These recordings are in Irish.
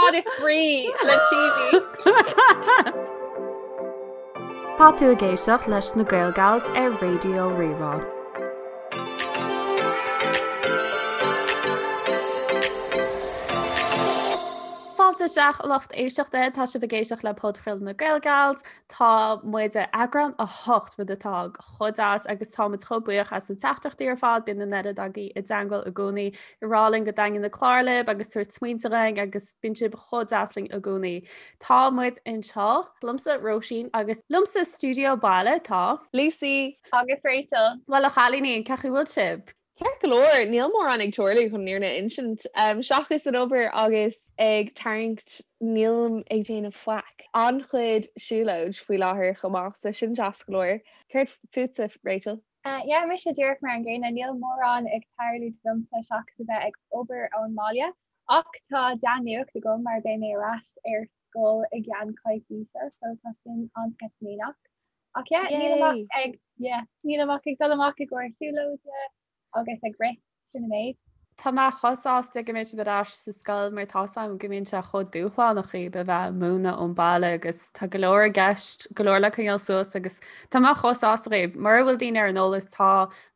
cad is brí le cheesy. Tá tú ag éisteacht leis na Gaelgals ar Raidió Rí-Rá. Fáilte isteach lucht éisteachta, tá sibh ag éisteacht le podchraoladh na Gaelgals. Tá muid ar eagrán 8 rud atá chomh deas agus tá muid chomh buíoch as na teachtaireachtaí ar fad, bíonn an oiread agaibh i dteangmháil i gcónaí ag rá linn go dtaitníonn na cláir libh agus tabhairt smaointe dhúinn agus bíonn sibh chomh deas linn i gcónaí. Tá muid anseo liomsa Róisín agus liomsa stiúideo baile tá. Lucy. Agus Rachel. Bhuel a chailíní, cén chaoi bhfuil sibh? Ceart go leor, níl mórán ag tarlú chun an fhírinne a insint. Seachas an obair agus ag tarraingt nílim ag déanamh faic. An-chuid siúlóid faoi láthair chomh maith, so sin deas go leor. Céard fútsa, Rachel? Yeah, mise díreach mar an gcéanna, níl mórán ag tarlú domsa seachas a bheith ag obair ón mbaile. Ach tá dea-nuacht agam mar beidh mé ar ais ar scoil i gceann coicíse, so tá sin an-sceitimíneach. Ach yeah, nílim ach ag, yeah, nílim ach ag dul amach i gcomhair siúlóide agus ag rith, sin an méid. Tá mé chomh sásta go mbeidh sibh ar ais sa scoil mar tá's a'm go mbíonn sé chomh dúshlánach dhaoibh a bheith ag múineadh ón baile agus tá go leor i gceist, go leor le coinneáil suas agus tá mé chomh sásta dhaoibh. Mura bhfuil daoine ar an eolas tá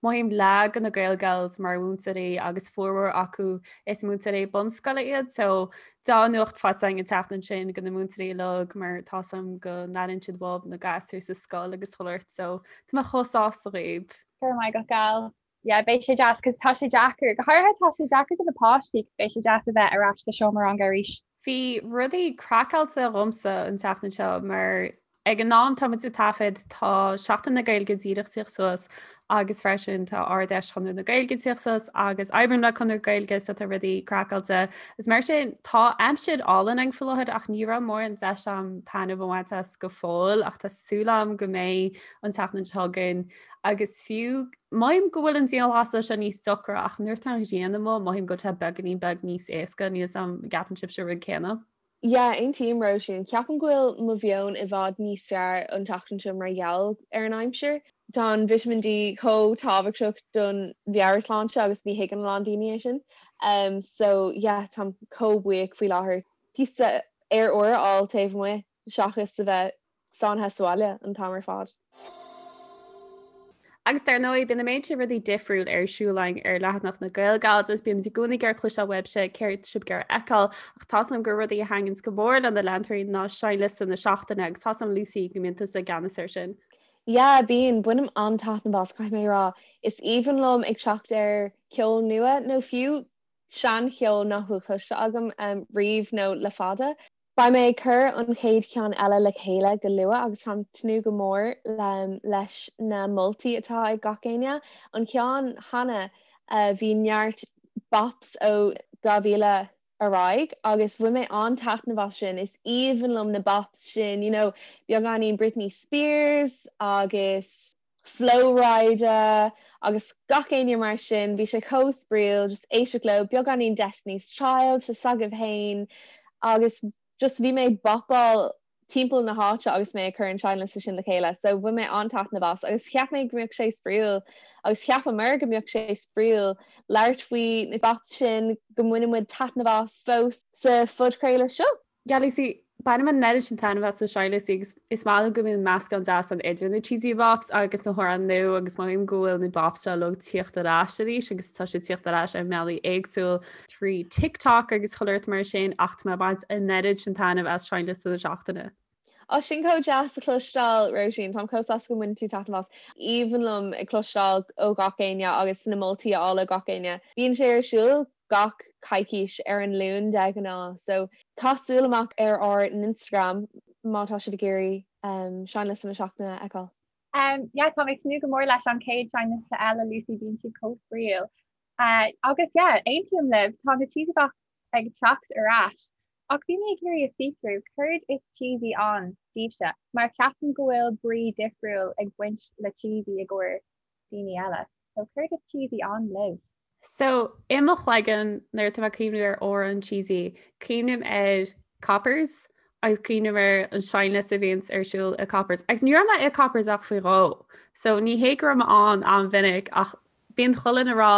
mothaím leath de na Gaelgals mar mhúinteoirí agus formhór acu is múinteoirí bunscoile iad so Dea-nuacht faighte againn an tseachtain sin do na múinteoirí uilig mar tá's a'm go n-airíonn siad uathub na gasúir sa scoil agus chuile shórt so tá mé chomh sásta dhaoibh. Go raibh maith agat gal. Yeah, beidh sé deas cos tá sé deacair, go háirithe tá sé deacair do na páistí cos beidh sé deas a bheith ar ais sa seomra ranga arís. Bhí rudaí craiceáilte dhomsa an tseachtain seo mar Ag an am tá muid ag taifead tá Seachtain na Gaeilge díreach tíocht suas agus freisin tá Ard-Fheis Chonradh na Gaeilge tíocht suas agus oibrím le Conradh na Gaeilge so tá rudaí craiceáilte. Is mar sin tá aimsir álainn ann faoi láthair ach ní raibh mórán deis a'm taitneamh a bhaint as go fóill ach tá súil a'm go mbeidh an tseachtain seo chugainn agus fiú mothaím go bhfuil an dianghlasáil seo níos deacra ach nuair atá an ghrian amuigh mothaím go bhfuil sé beagáinín beag níos éasca níl 's a'm an gceapann sibhse an rud céanna. Yeah, aontaím, Róisín. Ceapaim go bhfuil mo mheon i bhfad níos fearr an tseachtain seo mar gheall ar an aimsir. Tá an Vitamin D chomh tábhachtach don mheabhairshláinte agus ní thuigeann a lán daoine é sin. Um, so yeah, táim chomh buíoch faoi láthair píosa aer úr a fháil taobh amuigh seachas a bheith sáinnithe sa bhaile an t-am ar fad. Agus dar ndóigh, bíonn an méid sin rudaí difriúil ar siúl againn ar leathanach na Gaelgals agus bímid i gcónaí ag iarraidh cloisteáil uaibhse céard sibh ag iarraidh a fheiceáil ach tá's agam gur rudaí a thaitníonns go mór le na leantóirí ná seinnliosta na seachtaine agus tá's agam Lucy go mbíonn tusa i gceannas air sin. Yeah, bíonn. Bainim an-taitneamh as, caithfidh mé a rá. Is aoibhinn liom ag teacht ar cheol nua nó fiú seancheol nach bhfuil cloiste agam riamh nó le fada. Beidh mé ag cur an chéad cheann eile le chéile go luath agus táim ag tnúth go mór leis na moltaí atá ag gach éinne. An ceann cheana bhí neart bops ó 2000 ar aghaidh agus bhain mé an-taitneamh as sin. Is aoibhinn liom na bops sin, you know, beagáinín Britney Spears agus. Flo Rida agus gach éinne mar sin, bhí sé chomh spraíúil just éisteacht leo, beagáinín Destiny's Child tá 's agaibh fhéin agus just bhí mé ag bopáil timpeall na háite agus mé ag cur an seinnliosta sin le chéile so bhain mé an-taitneamh as agus cheap mé go mbeadh sé spraíúil agus cheapamar go mbeadh sé spraíúil labhairt faoi na bops sin go mbaineann muid taitneamh as fós sa phodchraoladh seo. Yeah Lucy, bainim an oiread sin taitneamh as na seinnliostaí agus is maith liom go mbíonn meascán deas ann idir na cheesy bops agus na hamhráin nua agus mothaím go bhfuil na bops seo uilig tíocht ar ais arís agus tá siad tíocht ar ais ar mbealaí éagsúil trí TikTok agus chuile shórt mar sin ach tá mé ag baint an oiread sin taitneamh as seinnliosta na seachtaine. Á, sin chomh deas a chloisteáil, Róisín. Táim chomh sásta go mbaineann tú taitneamh as. Aoibhinn liom ag cloisteáil ó gach éinne agus na moltaí a fháil ó gach éinne. Bíonn sé ar siúl gach coicís ar an Luan de ghnáth so caith súil amach ar ár n-Instagram má tá sibh ag iarraidh seinnliosta na seachtaine a fheiceáil. Um yeah tá mé ag tnúth go mór leis an chéad seinnliosta eile Lucy bíonn siad chomh spraíúil. Uh, agus yeah aontaím libh tá na cheesy bops ag teacht ar ais. Ach bhí mé ag iarraidh a fiosrú céard is cheesy ann daoibhse mar ceapaim go bhfuil brí difriúil ag baint le cheesy i gcomhair daoine eile. So céard is cheesy ann libh? So, i mo chloigeann, nuair atá mé ag cuimhniú ar amhrán cheesy, cuimhním ar Coppers agus cuimhním ar an seinnliosta a bhíonns ar siúl i Coppers. Agus ní raibh mé i Coppers ach faoi dhó. So, ní hé go raibh mé ann an-mhinic ach bíonn chuile dhuine ag rá.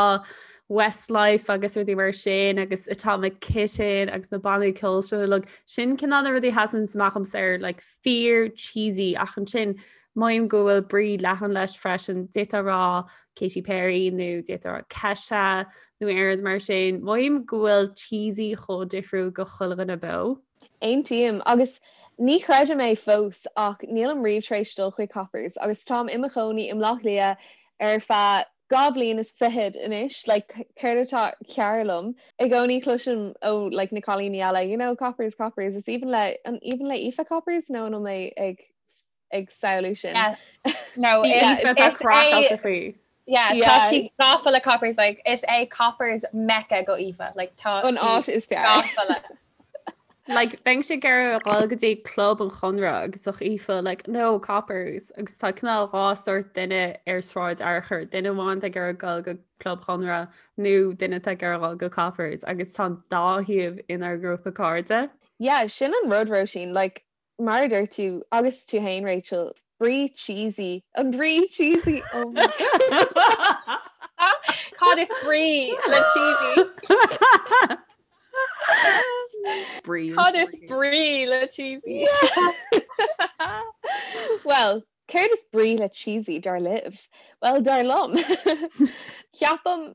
Westlife agus rudaí mar sin agus Atomic Kitten agus na bannaí ceoil sin uilig. Sin cineál na rudaí a sheasann amach dhomsa ar like fíor cheesy ach ansin mothaím go bhfuil brí leathan leis freisin. D'fhéadfá a rá Katy Perry nó d'fhéadfá a rá Kesha nó aon rud mar sin. Mothaím go bhfuil cheesy chomh difriúil go chuile dhuine beo. Aontaím, agus ní chreidim é fós ach nílim riamh tar éis dul chuig Coppers agus táim i mo chónaí i mBleá Cliath ar feadh 2 bhliain is fichead anois, like céard atá cearr liom? I gcónaí cloisim ó like na cailíní eile, you know, Coppers, Coppers, is aoibhinn le, an aoibhinn le Aoife Coppers nó an bhfuil mé ag ag samhlú sin? Yeah. No, is Aoife tá craiceáilte faoi. Yeah, tá sí gafa le Coppers, like is é Coppers Mecca go Aoife, like tá an áit is fearr. Gafa le. Like, bheinnse ag iarraidh a dhul go dtí club an Chonradh agus bheadh Aoife like, no, Coppers agus tá cineál dhá sórt duine ar Sráid Fhearchair, duine amháin atá ag iarraidh dul go club Chonradh nó duine atá ag iarraidh dul go Coppers agus tá an dá thaobh inár ngrúpa cairde. Yeah, sin an rud, Róisín, like, mar a dúirt tú, agus tú féin, Rachel, brí cheesy, an brí cheesy, oh my God. Cad is brí le cheesy? Brí. Cad is brí le cheesy? Well, céard is brí le cheesy dar libh? Well, dar liom. Ceapaim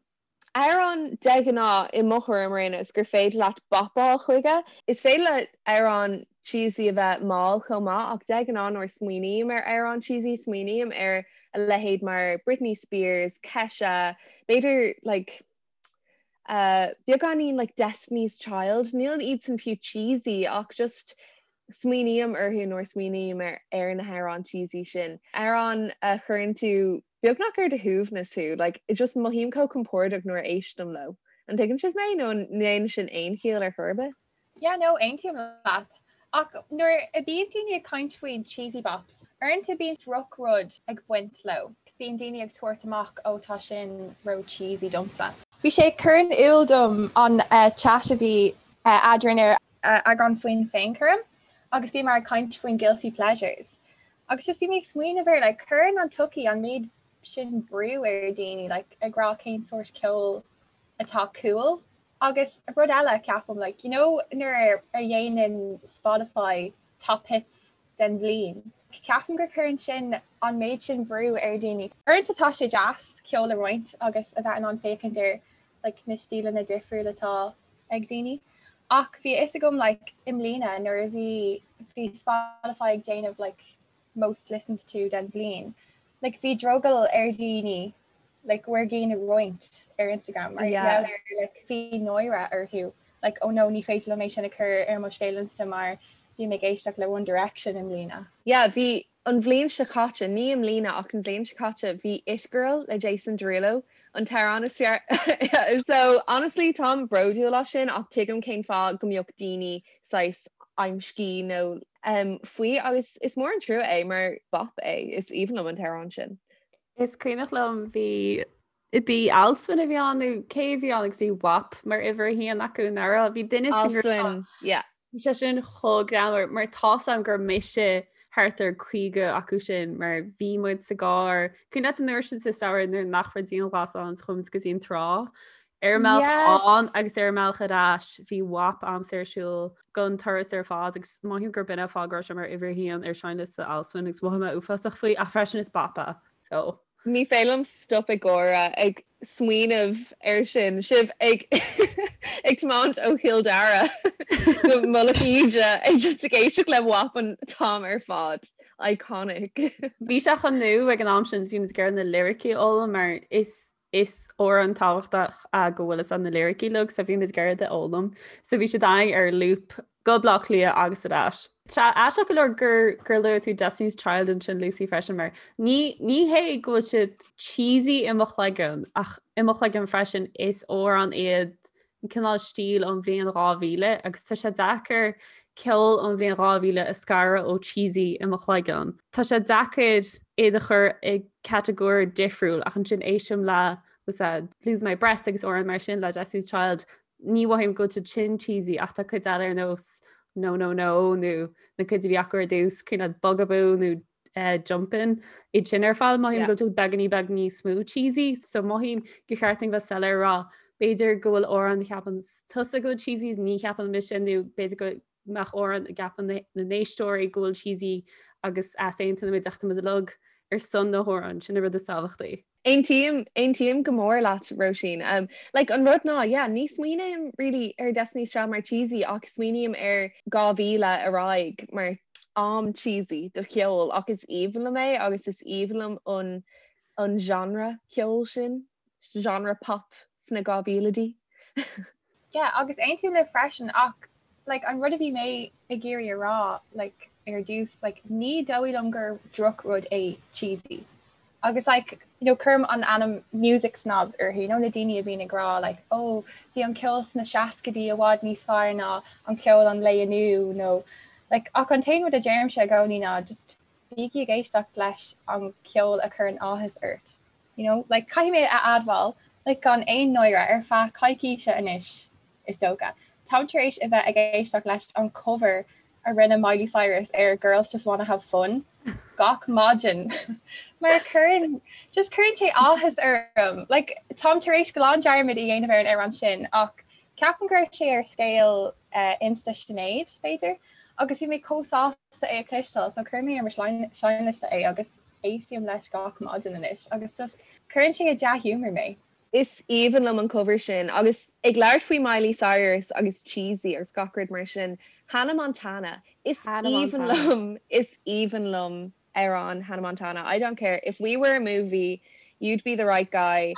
Amhrán de ghnáth, i mo thuairim ar aon nós, gur féidir leat bopáil chuige. Is féidir le amhrán cheesy a bheith mall chomh maith ach de ghnáth nuair a smaoiním ar amhrán cheesy smaoiním ar a leithéid mar Britney Spears, Kesha, b'fhéidir like uh beagáinín like Destiny's Child, níl iadsan fiú cheesy ach just smaoiním orthu nuair a smaoiním ar ar na hamhráin cheesy sin. Amhrán a chuireann tú beagnach ar do shuaimhneas thú, like just mothaím chomh compordach nuair a éistim leo. An dtuigeann sibh mé nó an ndéanann sin aon chiall ar chor ar bith? Yeah no, aontaím leat. Ach nuair a bíonn daoine ag caint faoi cheesy bops, uaireanta bíonn drochrud ag baint leo. Bíonn daoine ag tabhairt amach oh tá sin ró cheesy domsa. Bhí sé ag cur in iúl dom an chat a bhí eadrainn ar eagrán faoin féinchúram agus bhíomar ag caint faoin guilty pleasures agus just bhí mé ag smaoineamh ar like cuireann an tsochaí an méid sin brú ar daoine like ag rá cén sórt ceoil atá cool agus rud eile ceapaim like you know nuair a dhéanann Spotify top hits den bhliain ceapaim gur cuireann sin an méid sin brú ar daoine. Uaireanta tá sé deas ceol a roinnt agus a bheith in ann féachaint ar like na stíleanna difriúla atá ag daoine. Ach bhí a fhios agam like i mbliana nuair a bhí bhí Spotify ag déanamh like most listened to den bhliain like bhí drogall ar dhaoine like go bhfuair gcinn a roinnt ar Instagram mar yeah. ar like bhí náire orthu like oh no ní féidir liom é sin a chur ar mo scéal Insta mar bhí mé ag éisteacht le One Direction i mbliana. Yeah bhí An bhliain seo caite, ní i mbliana ach an bhliain seo caite, bhí It Girl le Jason Derulo an t-amhrán is fearr. So honestly táim bródúil as sin ach tuigim cén fáth go mbeadh daoine saghas amscaí nó faoi agus is mór an trua é mar bop é, is aoibhinn liom an t-amhrán sin. Is cuimhneach liom bhí Bhí Alswyn a bhí ann nó cé a bhí ann agus bhí WAP mar uimhir a haon acu nach raibh bhí duine Alswyn, yeah. Bhí sé sin chomh greannmhar mar tá's agam gur mise thart ar 50 acu sin mar bhí muid sa gcarr. Cuimhin leat an uair sin sa samhradh nuair nach raibh dianghlasáil ann chuaigh muid go dtí an trá. Ar an mbealach ann agus ar an mbealach ar ais bhí WAP a'msa ar siúl don turas ar fad agus mothaím gur b'in an fáth go raibh sé mar uimhir a haon ar seinnliosta Alswyn agus mhothaigh mé uafásach faoi ach freisin is bop é so. Ní féidir liom stop ag gáire ag smaoineamh air sin, sibh ag ag tiomáint ó Chill Dara go Mullach Íde ag just ag éisteacht le WAP an t-am ar fad. Iconic. Bhí sé chomh nua ag an am sin, bhí muid ag iarraidh na liricí a fhoghlaim mar is is amhrán tábhachtach go bhfuil fhios a'd na liricí uilig so bhí muid ag iarraidh iad a fhoghlaim. So bhí siad againn ar loop go Baile Átha Cliath agus ar ais. Tá aisteach go leor gur gur luaigh tú Destiny's Child ansin Lucy freisin mar ní ní hé go bhfuil siad cheesy i mo chloigeann ach i mo chloigeann freisin is amhrán iad cineál stíl ón bhliain 2000 agus tá sé deacair ceol ón bhliain 2000 a scaradh ó cheesy i mo chloigeann. Tá sé deacair iad a chur i catagóir difriúil ach ansin éistim le was that Lose My Breath agus amhráin mar sin le Destiny's Child ní mhothaím go bhfuil siad sin cheesy ach tá cuid eile ar nós No No No nó na cuid a bhí acu ar dtús, cuimhin leat Bugaboo nó Jumpin' iad sin ar fad mothaím go bhfuil beagáinín beag níos mó cheesy so mothaím gur cheart dúinn bheith soiléir a rá b'fhéidir go bhfuil amhrán a cheapann tusa go bhfuil cheesy ní cheapann mise nó b'fhéidir go mbeadh amhrán a gceapann na n-éisteoirí go bhfuil cheesy agus easaontaíonn muid ach tá muid uilig ar son na hamhráin sin an rud is tábhachtaí. Aontaím, aontaím go mór leat, Róisín. Um, like, an rud ná, yeah, ní smaoiním really ar Destiny's Child mar cheesy ach smaoiním ar 2000 ar aghaidh mar am cheesy do cheol ach is aoibhinn liom é agus is aoibhinn liom an, an genre ceoil sin, genre pop sna 2000idí. Yeah, agus aontaím libh freisin ach like an rud a bhí mé ag iarraidh a rá like ar dtús like ní dóigh liom gur drochrud é cheesy. Agus like you know cuirim an ainm music snobs orthu, you know na daoine a bhíonn ag rá like oh bhí an ceol sna seascaidí i bhfad níos fearr ná an ceol an lae inniu nó like ach an t-aon rud a deirimse i gcónaí ná just bígí ag éisteacht leis an ceol a chuireann áthas ort. You know, like, caithfidh mé a admháil, like, gan aon náire, ar feadh coicíse anois, is dócha, táim tar éis a bheith ag éisteacht leis an cover a rinne Miley Cyrus ar Girls Just Wanna Have Fun gach maidin mar cuireann, just cuireann sé áthas orm. Like, táim tar éis glan dearmad a dhéanamh ar an amhrán sin ach ceapaim go raibh sé ar scéal uh, Insta Sinéad, b'fhéidir, agus bhí mé chomh sásta é a chloisteáil, so chuir mé ar mo seinnliosta é agus Éistím leis gach maidin anois agus just cuireann sé i dea-ghiúmar mé. Is aoibhinn liom an cover sin. Agus ag labhairt faoi Miley Cyrus agus cheesy agus gach rud mar sin, Hannah Montana. Is aoibhinn liom, is aoibhinn liom amhrán Hannah Montana. I don't care if we were a movie, you'd be the right guy.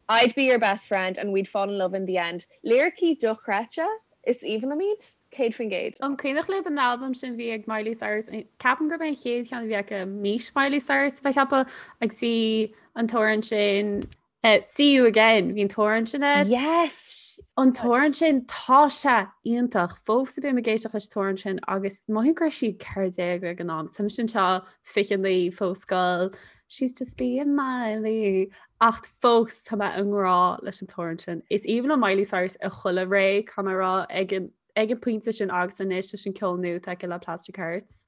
I'd be your best friend and we'd fall in love in the end. Liricí dochreidte, is aoibhinn liom iad, 100%. An cuimhneach libh an albam sin bhí ag Miley Cyrus? Ceapaim gurb é an chéad cheann a bhí aici Meet Miley Cyrus a bheith ceaptha agus bhí an t-amhrán sin See You Again, bhí an t-amhrán sin air. Yes! An t-amhrán sin tá sé iontach fós bím ag éisteacht leis an t-amhrán sin agus mothaím go raibh sí 14 ag an am. Tá mise anseo 29 fós scoil. She's just being Miley. Ach fós tá mé i ngrá leis an t-amhrán sin. Is aoibhinn liom Miley Cyrus i chuile ré, caithfidh mé a rá, ag an ag an pointe sin agus anois leis an ceol nua atá aici le Plastic Hearts.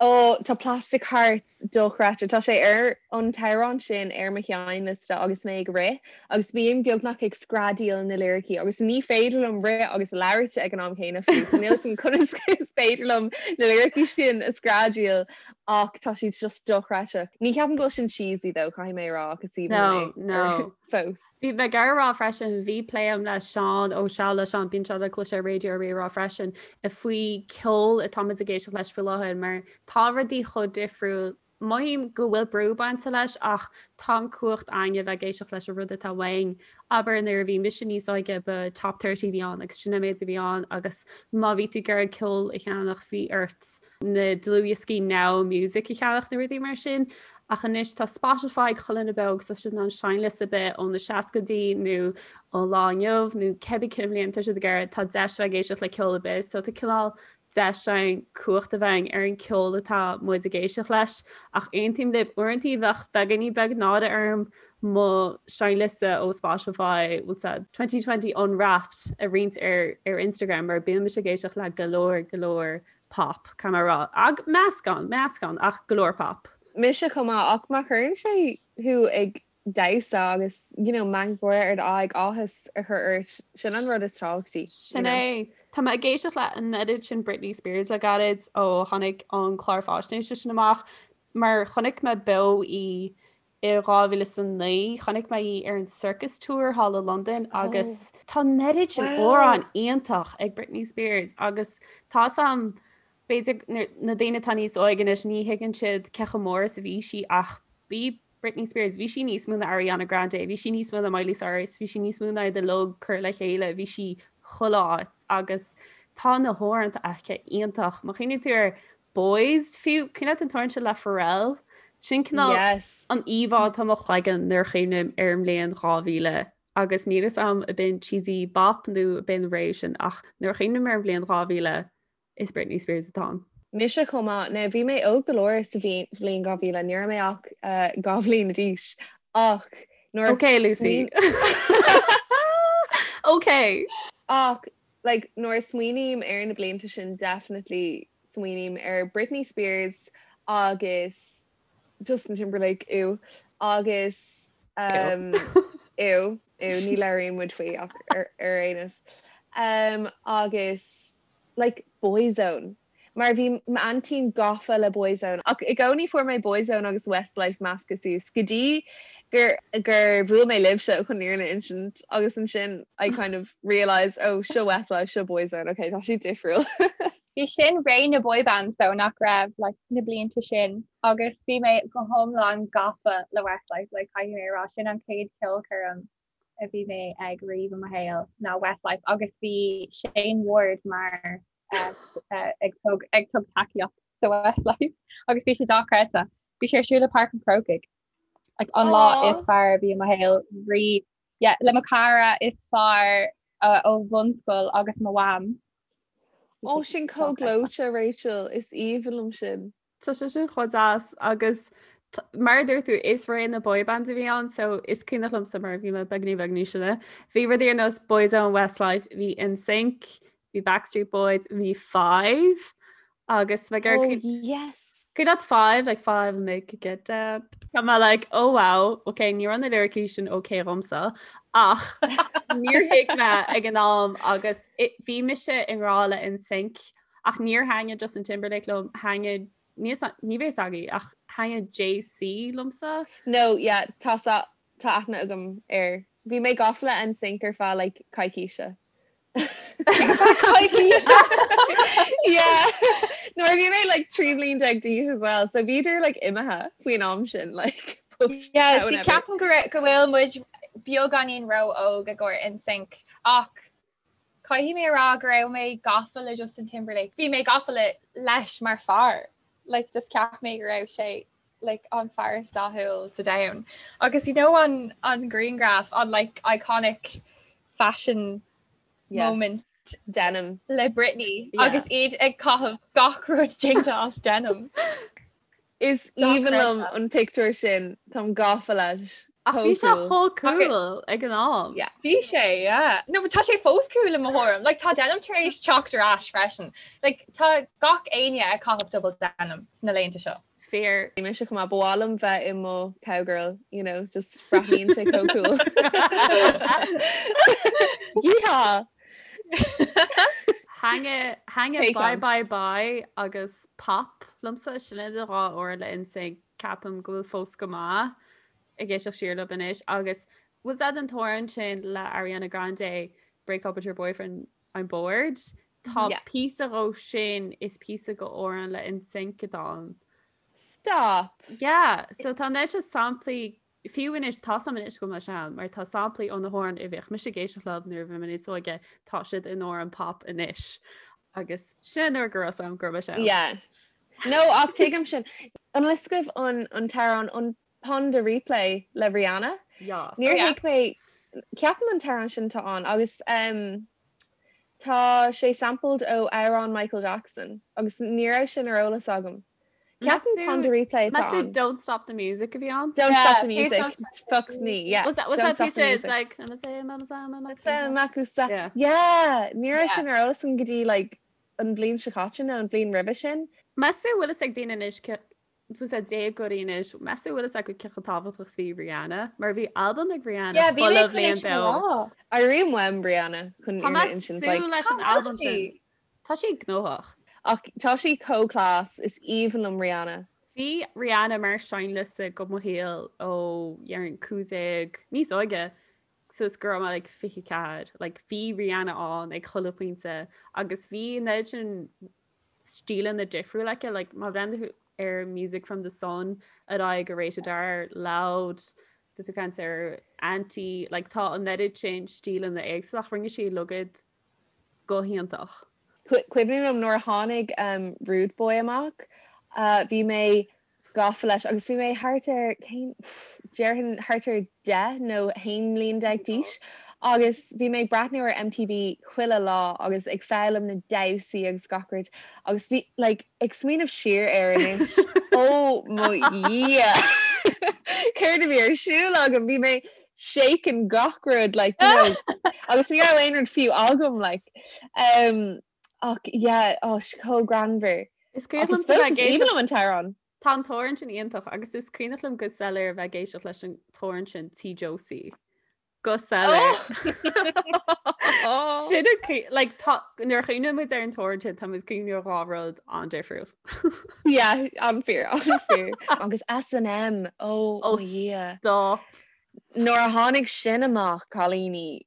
Ó, tá Plastic Hearts dochreidte. Tá sé ar an t-amhrán sin ar mo sheinnliosta agus mé ag rith agus bím beagnach ag screadaíl na liricí agus ní féidir liom rith agus labhairt ag an am céanna fiú, so níl a fhios agam conas is féidir liom na liricí sin a screadaíl Ach tá siad just dochreidte. Ní cheapaim go bhfuil sin cheesy though, caithfidh mé a rá, ach is aoibhinn liom é no. fós. Bhí mé ag iarraidh a rá freisin, bhí plé agam le Seán ó Seal le Seán, bíonn sé le cloisteáil ar Raidió Rí-Rá freisin, faoi ceol atá muid ag éisteacht leis faoi láthair mar tá rudaí chomh difriúil. Mothaím go bhfuil brú bainte leis ach tá an cumhacht againn a bheith ag éisteacht leis an rud atá uainn. Abair nuair a bhí mise níos óige ba Top 30 a bhí ann agus sin an méid a bhí ann agus má bhí tú ag iarraidh ceol a cheannach bhí ort na dlúthdhioscaí Now Music a cheannach nó rudaí mar sin. Ach anois tá Spotify ag chuile dhuine beo agus tá siad in ann seinnliosta ar bith ó na seascaidí nó ón lá inniu nó cibé cén bhliain tá siad ag iarraidh, tá deis bheith ag éisteacht le ceol ar bith. So tá cineál deis againn cumhacht a bheith againn ar an ceol atá muid ag éisteacht leis. Ach aontaím libh, uaireanta bheadh beagáinín beag náire orm mo seinnliosta ó Spotify, what's that, 2020 Unwrapped a roinnt ar ar Instagram mar bíonn mise ag éisteacht le go leor go leor pop, caithfidh mé a rá. Ag meascán, meascán, ach go leor pop. Mise chomh maith, ach má chuireann sé thú ag damhsa agus, you know, meangadh gáire ar d'aghaidh, áthas a chur ort, sin an rud is tábhachtaí, you Sin know. é. Tá mé ag éisteacht le an oiread sin Britney Spears le gairid ó tháinig an clár faisnéise sin amach, mar chonaic mé beo í I 2009 chonaic mé í ar an Circus Tour thall i Londain agus tá an oiread sin amhrán iontach ag Britney Spears agus tá 's a'm b'fhéidir na daoine atá níos óige anois ní thuigeann siad cé chomh mór is a bhí sí ach bhí Britney Spears, bhí sí níos mó ná Ariana Grande, bhí sí níos mó ná Miley Cyrus, bhí sí níos mó ná iad uilig curtha le chéile, bhí sí chuile áit agus tá na hamhráin aici iontach. Má chuimhníonn tú ar Boys fiú, cuimhin leat an t-amhrán sin le Pharrell? Sin cineál Yes. an íomhá atá i mo chloigeann nuair a chuimhním ar an mbliain 2000 agus níl 'fhios a'm ab in cheesy bop nó ab in ré sin ach nuair a chuimhním ar an bhliain 2000 is Britney Spears atá ann. Mise chomh maith. Now bhí mé óg go leor sa bhliain 2000, ní raibh mé ach 2 bhliain d'aois ach nuair a Ok Lucy. Ok. Ach like nuair a smaoiním ar na blianta sin definitely smaoiním ar Britney Spears. agus Justin Timberlake ew agus um, ew ew ní labhraíonn muid faoi ach ar ar aon nós um, agus like Boyzone mar bhí m'aintín gafa le Boyzone ach i gcónaí fuair mé Boyzone agus Westlife measctha suas go dtí gur gur bhuail mé libhse chun an fhírinne a insint agus ansin I kind of realised oh seo Westlife seo Boyzone ok tá siad difriúil. Bhí sin ré na boy bands though nach raibh like na blianta sin agus bhí mé go hiomlán gafa le Westlife like caithfidh mé a rá sin an chéad ceolchoirm a bhí mé ag riamh i mo shaol ná Westlife agus bhí Shane Ward mar ag tug ag tug tacaíocht do Westlife agus bhí sé dochreidte. Bhí sé ar siúl i Páirc an Chrócaigh like an lá is fearr a bhí i mo shaol riamh. Yeah, le mo cara is fearr ó bhunscoil agus mo mham. Ó sin chomh gleoite Rachel, is aoibhinn liom sin. Tá sé sin chomh deas agus mar a dúirt tú is ré na boy bands a bhí ann so is cuimhneach liomsa mar bhí mé beagní beag níos sine. Bhí rudaí ar nós Boyzone, Westlife, bhí NSYNC, bhí Backstreet Boys, bhí Five agus like oh, yes. Cuimhin leat Five like five and make it get down. Tá mé like oh wow, okay ní raibh na lyricí sin okay dhomsa ach níor thuig mé ag an am agus bhí mise i ngrá le NSYNC ach níor thaitnigh Justin Timberlake liom thaitnigh ní ní bheidh a fhios agaibh ach thaitnigh JC liomsa. No, yeah, tá tá aithne agam air. Bhí mé gafa le NSYNC ar feadh like coicíse. Yeah. Nuair a bhí mé like 13 bliain d'aois as well, so bhíodar like imithe faoin am sin like post Yeah, see, ceapaim go raibh- go bhfuil muid beagáinín ró-óg i gcomhair NSYNC ach caithfidh mé a rá go raibh mé gafa le Justin Timberlake. Bhí mé gafa le leis mar fear. Like just cheap mé go raibh sé like an fear is dathúil sa domhan. Agus you know an an grianghraf an like iconic fashion Yes. moment Denim. le Britney Yeah. agus iad ag caitheamh gach rud déanta as denim. Is aoibhinn liom an pictiúr sin, táim gafa leis. Ach bhí sé chomh cool ag an am. Yeah. Bhí sé, yeah. No, but tá sé fós cool i mo thuairim. Like, tá denim tar éis teacht ar ais freisin. Like, tá gach éinne ag caitheamh double denim sna laethanta seo. Fíor. Bhí mise chomh maith, ba mhaith liom bheith i mo cowgirl, you know, just breathnaíonn sé chomh cool. Yeehaw! Thaitnigh Bye Bye Bye agus Pop liomsa, sin iad an dhá amhrán le NSYNC ceapaim go bhfuil fós go maith ag éisteacht siar leo anois agus was that an t-amhrán sin le Ariana Grande Break Up With Your Boyfriend I'm Bored? Tá píosa dhó sin is píosa go amhrán le NSYNC atá ann. Stop! Yeah, so tá an oiread sin samplaí Fiú anois, tá a fhios agam anois go bhfuil mé sean, mar tá samplaí ó na hamhráin a bhíodh mise ag éisteacht leo nuair a bhí mé níos óige, tá siad in amhráin pop anois. Agus sin nuair go raibh a fhios agam go raibh mé sean. Yeah. No, ach tuigim sin. An bhfuil a fhios agaibh an an t-amhrán an Pon de Replay le Rihanna? Yes. Níor thuig mé, ceapaim an t-amhrán sin atá ann agus um, tá sé sampled ó amhrán Michael Jackson agus ní raibh sin ar eolas agam. Ceapaim Pon de Replay atá Meas tú ann. Don't Stop the Music a bhí ann? Don't Yeah, stop the please music. don't stop Fucks me, yeah. Was that was Don't that stop piece the it's music. like I'm a say I'm a say I'm a Sa Makusa. Yeah. Yeah, ní raibh Yeah. sin ar eolas agam go dtí like an bhliain seo caite nó an bhliain roimhe sin. Meas tú bhfuil fhios ag daoine anois bhfuil a déagóirí anois, meas tú bhfuil fhios acu cé chomh tábhachtach is bhí Rihanna? Mar bhí albam ag Rihanna Yeah, bhí chuile mé chun é bhliain sin a beo. rá. Airím uaim Rihanna chun Tá fhírinne mé a insint like súil leis an Cá bhfuil albam sin. sí? Tá sí gnóthach. Ach tá sí chomh class, is aoibhinn liom Rihanna. Bhí Rihanna mar seinnliosta go mo shaol ó déarfainn 15, níos óige, suas go raibh mé like 24. Like bhí Rihanna ann ag chuile phointe agus bhí an oiread sin stíleanna difriúla aici, like má bhreathnaíonn tú ar Music from the Sun ar aghaidh go Rated R, Loud, tá tú ag caint ar Anti, like tá an oiread sin stíleanna éagsúla ach rinne sí uilig iad go hiontach. Cuimhin liom nuair a tháinig Rude Boy amach, bhí mé gafa leis agus bhí mé thart ar, cén, déarfainn thart ar 10 nó 11 mbliain d'aois agus bhí mé ag breathnú ar MTV chuile lá agus ag foghlaim na damhsaí agus gach rud agus bhí, like, ag smaoineamh siar air anois, ó mo Dhia! Céard a bhí ar siúl agam? Bhí mé shaking gach rud like you know agus ní raibh aon rud fiú agam like um ach yeah oh chomh greannmhar. Is cuimhin Agus liomsa fós bheith is ag aoibhinn éisteacht liom an t-amhrán. Tá an t-amhrán sin iontach agus is cuimhneach liom go soiléir a bheith ag éisteacht leis an t-amhrán sin Tí Josie. Go soiléir. Sin a cui- like, tá- nuair a chuimhníonn muid ar an t-amhrán sin tá muid ag cuimhneamh ar dhá rud an-difriúil. Yeah, an-fhíor, an-fhíor. Agus S&M, oh Oh, mo Dhia. stop. Nuair a tháinig sin amach, cailíní,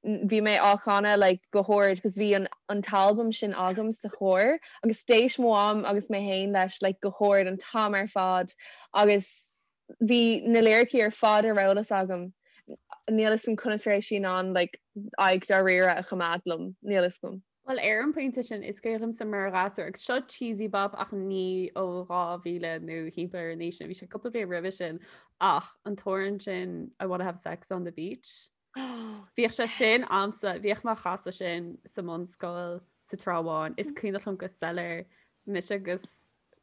bhí mé á chanadh like go hard cos bhí an an t-albam sin agam sa charr agus d'éist mo mham agus mé féin leis like go hard an t-am ar fad agus bhí na liricí ar fad ar eolas agam. Níl fhios agam conas a raibh sí in ann like aghaidh dáiríre a choimeád liom, níl fhios agam. Bhuel ar an bpointe sin is cuimhin liomsa mar ghasúr agus seo cheesy bop ach ní ó 2000 nó thimpeall ar an aois sin, bhí sé cúpla bliain roimhe sin ach an t-amhrán sin I wanna have sex on the beach. Bhíodh sé sin a'msa, bhíodh mé á chasadh sin sa mbunscoil sa Trá Bháin. Is cuimhneach liom go soiléir mise agus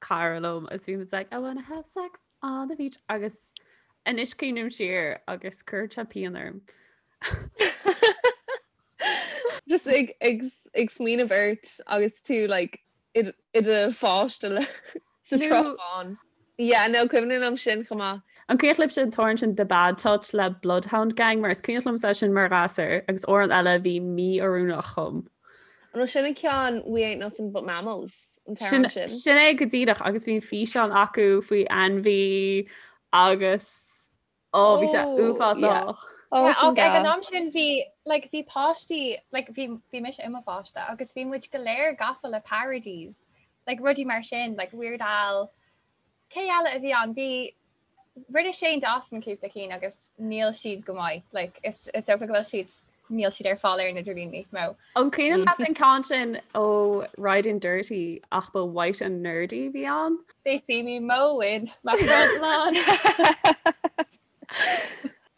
cara liom agus bhí muid like I wanna have sex on the beach agus anois cuimhním siar agus cuireann sé pian orm. Just ag ag ag smaoineamh ort agus tú like i do pháiste sa Trá Bháin. Yeah, no, cuimhin liom sin chomh maith. An cuimhin libhse an t-amhrán sin The Bad Touch le Bloodhound Gang mar is cuimhin liomsa é sin mar ghasúr agus amhrán eile a bhí mí-oiriúnach dhom. An bhfuil sin an ceann We Ain't Nothing But Mammals an t-amhrán sin? Sin é go díreach agus bhí an físeán acu faoi ainmhí agus Ó bhí sé uafásach. Ach ag an am sin bhí like bhí páistí like bhí bhí mise i mo pháiste agus bhí muid go léir gafa le parodies like rudaí mar sin like Weird Al cé eile a bhí ann bhí rinne Shane Dawson cúpla cinn agus níl siad go maith like is is dócha go bhfuil siad níl siad ar fáil ar an idirlíon níos mó. An cuimhin leat an ceann sin ó Riding Dirty ach ba White and Nerdy a bhí ann? They see me mowing my front lawn.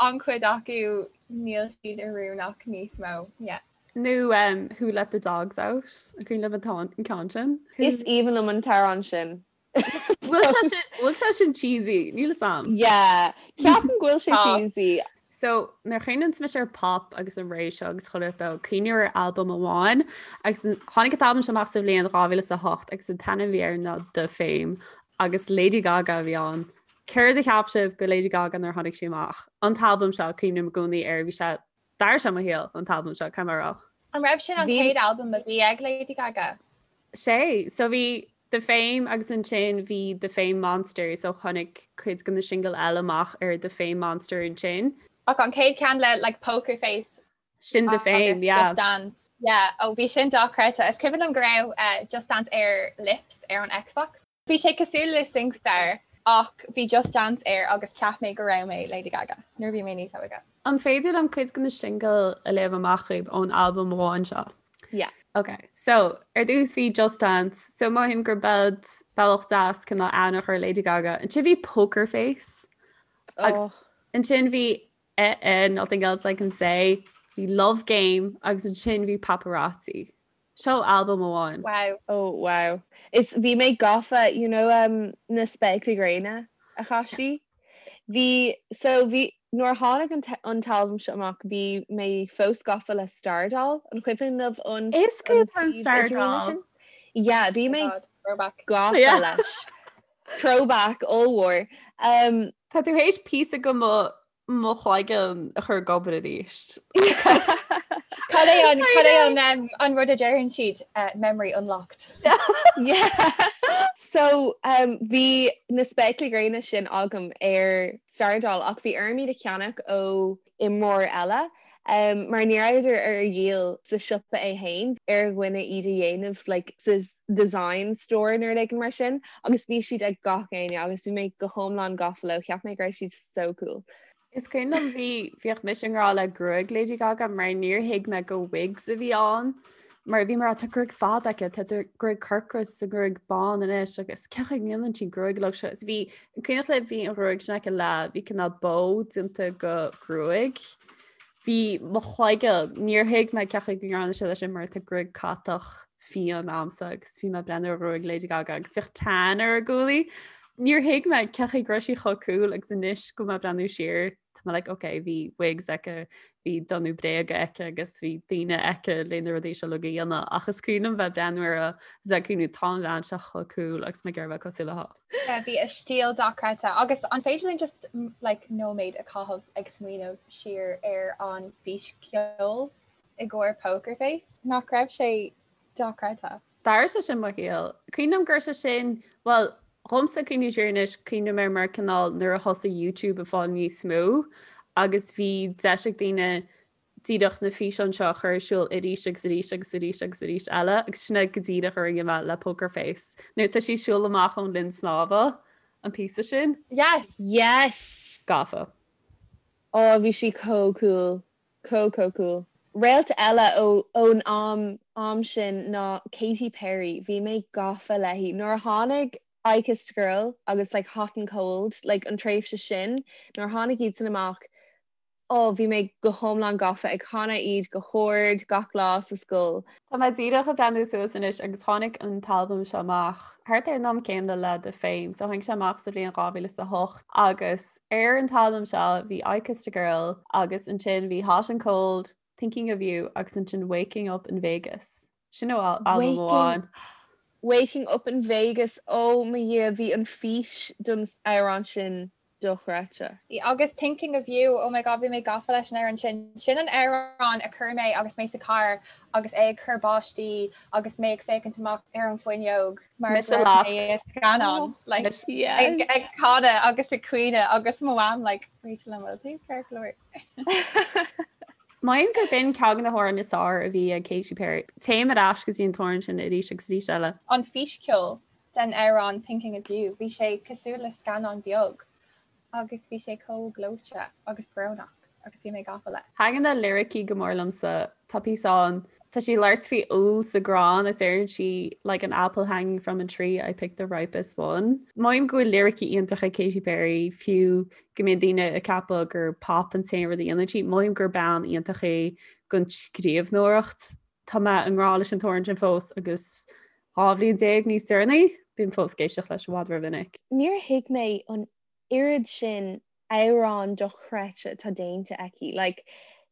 An-chuid acu níl siad oiriúnach níos mó, yeah. Nó um, Who Let the Dogs Out? An cuimhin libh an ceann sin? Is aoibhinn liom an t-amhrán sin. Bhfuil sé sin cheesy, níl fhios a'm. Yeah, ceapaim go bhfuil sé cheesy. So nuair a chuimhníonn mise ar pop agus an ré seo agus chuile rud cuimhním ar albam amháin agus tháinig an t-albam seo amach sa bhliain 2008 agus an t-ainm a bhí air ná The Fame agus Lady Gaga a bhí ann. Céard a cheap sibh go Lady Gaga nuair a tháinig sí amach? An t-albam seo cuimhním i gcónaí air bhí sé D'athraigh sé mo shaol an t-albam seo, caithfidh mé a rá. An raibh sin an chéad albam a bhí ag Lady Gaga? Sea, so bhí The Fame agus ansin bhí The Fame Monster, so tháinig cuid de na singil eile amach ar The Fame Monster ansin. Ach an chéad ceann le like Poker Face Sin The Fame, yeah. Just Dance. Yeah, oh bhí sin dochreidte. Is cuimhin liom go raibh uh, Just Dance ar Lips ar an Xbox. Bhí sé cosúil le SingStar ach bhí Just Dance air agus cheap mé go raibh mé Lady Gaga nuair a bhí mé níos óige. An féidir liom cuid de na singil a léamh amach dhaoibh ón albam amháin seo? Yeah. Ok, so ar dtús bhí Just Dance, so mothaím gur b'ead bealach deas cineál aithne a chur ar Lady Gaga. Ansin bhí Poker Face. Agus oh. ansin bhí eh, eh, Nothing Else I Can Say, bhí Love Game agus ansin bhí Paparazzi. Seo albam amháin. Wow. Oh wow. Is bhí mé gafa, you know um, na spéaclaí gréine a chaith sí. Bhí, so bhí, nuair a tháinig an, an t-albam seo amach, bhí mé fós gafa le Stardoll, an cuimhin libh an Is cuimhin liom Stardoll. sin? Yeah, bhí mé Throwback. gafa Yeah. leis. Throwback ollmhór. Um, Tá tú théis píosa de mo mo chloigeann a chur ag obair arís. Cad é an cad é an um, an rud a deireann siad uh, memory unlocked. Yeah. So um, bhí na spéaclaí gréine sin agam ar Stardoll ach bhí orm iad a cheannach ó imreoir eile um, mar ní rabhadar ar dhíol sa siopa é féin ar dhuine iad a dhéanamh like, sa design store nó rud éigin mar sin agus bhí siad ag gach éinne agus bhí mé go hiomlán gafa leo, cheap mé go raibh siad so cool. Is cuimhin liom bhí bhíodh mise i ngrá le gruaig Lady Gaga mar níor thuig mé go wigs a bhí ann mar bhí mar tá gruaig fada aici tá gruaig corcra is gruaig bán anois agus cén chaoi a ndéanann sí gruaig uilig seo is bhí an cuimhneach libh bhí an ghruaig sin aici le bhí cineál bó déanta go gruaig. Bhí mo chloigeann, níor thuig mé cén chaoi go ndearna siad é sin mar tá gruaig catach fiáin a'msa agus bhí mé ag breathnú ar ghruaig Lady Gaga agus bhíodh tan ar a guaillí. Níor thuig mé cén chaoi go raibh sí chomh cool agus anois go mé ag breathnú siar. Tá mé like ok bhí wigs aici, bhí donnú bréaga aici agus bhí daoine aici le na rudaí seo uilig a dhéanamh ach is cuimhin liom bheith ag breathnú uirthi agus ag cuimhniú tá an bhean seo chomh cool agus mé ag iarraidh bheith cosúil léi. Yeah, bhí a stíl dochreidte agus an féidir linn just like nóiméad a chaitheamh ag smaoineamh siar ar an bhfíscheol i gcomhair Poker Face? Nach raibh sé dochreidte? D'athraigh sé sin mo shaol. Cuimhin liom go raibh sé sin, bhuel, dhomsa cuimhniú siar anois, cuimhním air mar cineál nuair a thosaigh YouTube ag fáil níos mó agus bhí deis ag daoine díreach na físeáin seo a chur ar siúl arís agus arís agus arís agus arís eile agus sin é go díreach a rinne mé le Poker Face. Nuair atá sí ag siúl amach ón linn snámha, an píosa sin. Yes! Yes! Gafa. Ó, bhí sí chomh cool. Chomh chomh cool. Réalt eile ó ón am am sin ná Katy Perry. Bhí mé gafa léi. Nuair a tháinig I Kissed a Girl agus like Hot and Cold, like an tréimhse sin, nuair a tháinig iad sin amach, oh bhí mé go hiomlán gafa ag canadh iad go hard gach lá sa scoil. Tá mé díreach ag breathnú suas anois agus tháinig an t-albam seo amach thart ar an am céanna le The Fame, so tháinig sé amach sa bhliain 2008 agus ar an t-albam seo bhí I Kissed a Girl agus ansin bhí Hot and Cold, Thinking of You agus ansin Waking Up in Vegas. Sin ó albam amháin. Waking Up in Vegas, oh mo Dhia, bhí an fís don amhrán sin dochreidte. Agus Thinking of You, oh my god bhí mé gafa leis an amhrán sin. Sin an amhrán a chuir mé agus mé sa carr agus é ag cur báistí agus mé ag féachaint amach ar an bhfuinneog mar go raibh mé i scannán like, ag, ag canadh agus ag caoineadh agus mo mham like, Rachel an bhfuil tú ceart go leor. Mothaím gur b'in ceann de na hamhráin is fearr a bhí ag Katy Perry. Téim ar ais go dtí an t-amhrán sin arís agus arís eile. An físcheol den amhrán Thinking of You, bhí sé cosúil le scannán beag agus bhí sé chomh gleoite agus brónach agus bhí mé gafa leis. Thaitnigh na liricí go mór liomsa. Tá píosa ann, tá sí ag labhairt faoi úll sa gcrann is deireann sí like an apple hanging from a tree, I picked the ripest one. Mothaím go bhfuil liricí iontach ag Katy Perry, fiú go mbíonn daoine ag ceapadh gur pop an t-aon rud a dhéanann sí, mothaím gur bean iontach í don scríbhneoireacht. Tá mé i ngrá leis an t-amhrán sin fós agus 12 bhliain níos deireanaí, bím fós ag éisteacht leis i bhfad rómhinic. Níor thuig mé an oiread sin amhrán dochreidte atá déanta aici. Like,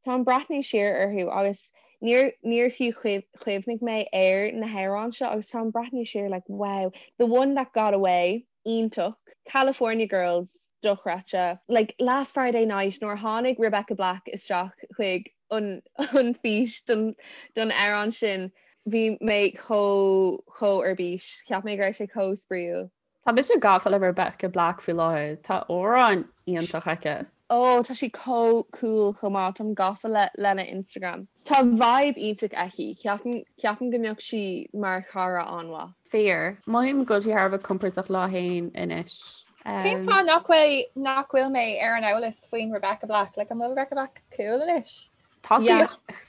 táim ag breathnú siar orthu agus níor níor fiú chuimhnigh mé ar na hamhráin seo agus táim ag breathnú siar like wow, The One That Got Away, iontach, California Girls, dochreidte, like Last Friday Night nuair a tháinig Rebecca Black isteach chuig an an fís don don amhrán sin bhí mé chomh chomh ar bís, cheap mé go raibh sé chomh spraíúil. Tá mise gafa le Rebecca Black faoi láthair, tá amhrán iontach aici. Oh tá sí chomh cool chomh maith, táim gafa le lena Instagram. Tá vibe iontach aici, ceapaim ceapaim go mbeadh sí mar chara an-mhaith. Fíor. Mothaím go bhfuil sí thar a bheith compordach léi féin anois. Cén fáth nach bhfuil nach bhfuil mé ar an eolas faoin Rebecca Black? Like an bhfuil Rebecca Black cool anois? Tá sí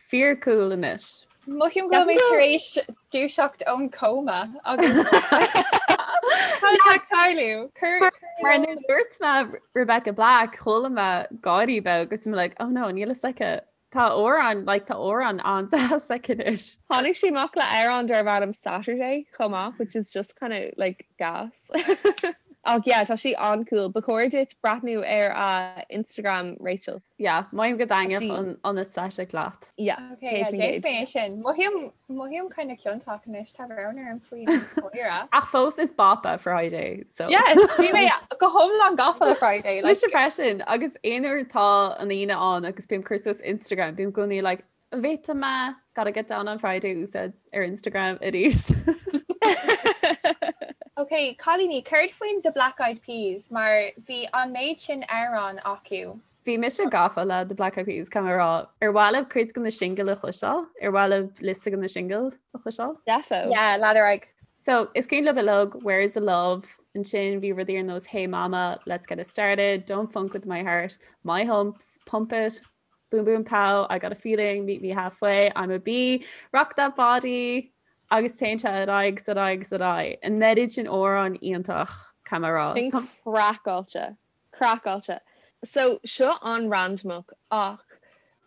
fíor cool anois. Mothaím go bhfuil mé tar éis dúiseacht ón cóma agus Tá ag tarlú. Mar nuair a dúirt mé Rebecca Black, chuala mé gáirí beag agus I'm like, oh no, níl fhios aici. Tá amhrán, like, tá amhrán an-deas aici anois. Tháinig sí amach le amhrán darb ainm Saturday chomh maith, which is just kind of like gas. Ach yeah, tá sí an-cool. Ba chóir duit breathnú ar a Instagram, Rachel. Yeah, mothaím go dtaitneodh an an aesthetic leat. Yeah, Okay, yeah, déanfaidh mé sin. Mothaím mothaím kind of ciontach anois, tá brón orm faoin gcomhaire. Ach fós is bop é Friday, so. Yes, bhí mé go hiomlán gafa le Friday. Like, Mise freisin, agus aon uair tá an Aoine ann agus bím ag cur suas Instagram, bím i gcónaí like, bhféadfaidh mé gotta get down on Friday a úsáid ar Instagram arís. Ok, cailíní, céard faoin The Black Eyed Peas mar bhí an méid sin amhrán acu. Bhí mise gafa le The Black Eyed Peas, caithfidh mé a rá. Ar mhaith libh cuid de na singil a chloisteáil? Ar mhaith libh liosta de na singil a chloisteáil? Defo. Yeah, lean ar aghaidh. So, is cuimhin libh uilig Where's the Love? Ansin bhí rudaí ar nós Hey Mama, Let's Get It Started, Don't Funk With My Heart, My Humps, Pump It, Boom Boom Pow, I Got a Feeling, Meet Me Halfway, I'm a Bee, Rock That Body, agus téann sé ar aghaidh 's ar aghaidh 's ar aghaidh. An oiread sin amhrán iontach, caithfidh mé a rá. Sin craiceáilte. Craiceáilte. So, seo an-randamach ach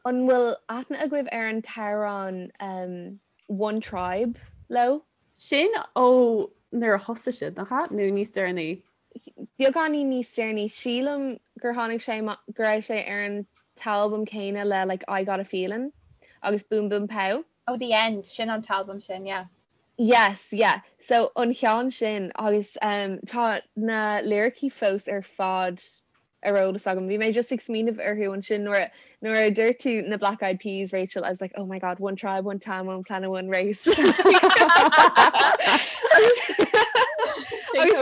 an bhfuil aithne agaibh ar an t-amhrán um One Tribe leo? Sin ó nuair a thosaigh siad, nach ea? Nó níos deireanaí? beagáinín níos deireanaí, sílim gur tháinig sé, go raibh sé ar an t-albam céanna le like I Got a Feeling agus Boom Boom Pow. Oh The End, sin an t-albam sin, yeah. Yes, yeah. So an ceann sin agus um, tá na liricí fós ar fad ar eolas agam. Bhí mé just ag smaoineamh orthu ansin nuair nuair a dúirt tú na Black Eyed Peas, Rachel, I was like, oh my god, one tribe, one town, one planet, one race. Agus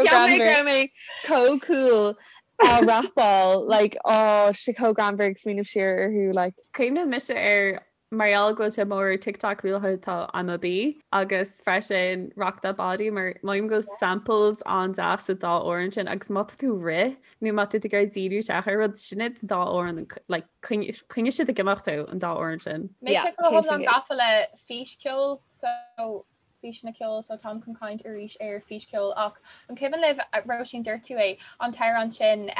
cheap mé go raibh mé chomh cool á rapáil, like, oh, sé chomh greannmhar ag smaoineamh siar orthu, like. Cuimhníonn mise ar Mar gheall go bhfuil sé mór ar TikTok faoi láthair tá I'm a Bee agus freisin Rock That Body mar mothaím go bhfuil samples an-deas sa dá amhrán sin agus má tá tú ag rith nó má tá tú ag iarraidh díriú isteach ar rud sin iad an dá amhrán like coinneoidh siad ag imeacht thú an dá amhrán sin. Mise go hiomlán gafa le físcheol so físeanna ceoil so táim chun caint arís ar físcheol ach an cuimhin libh, Róisín dúirt tú é, an t-amhrán sin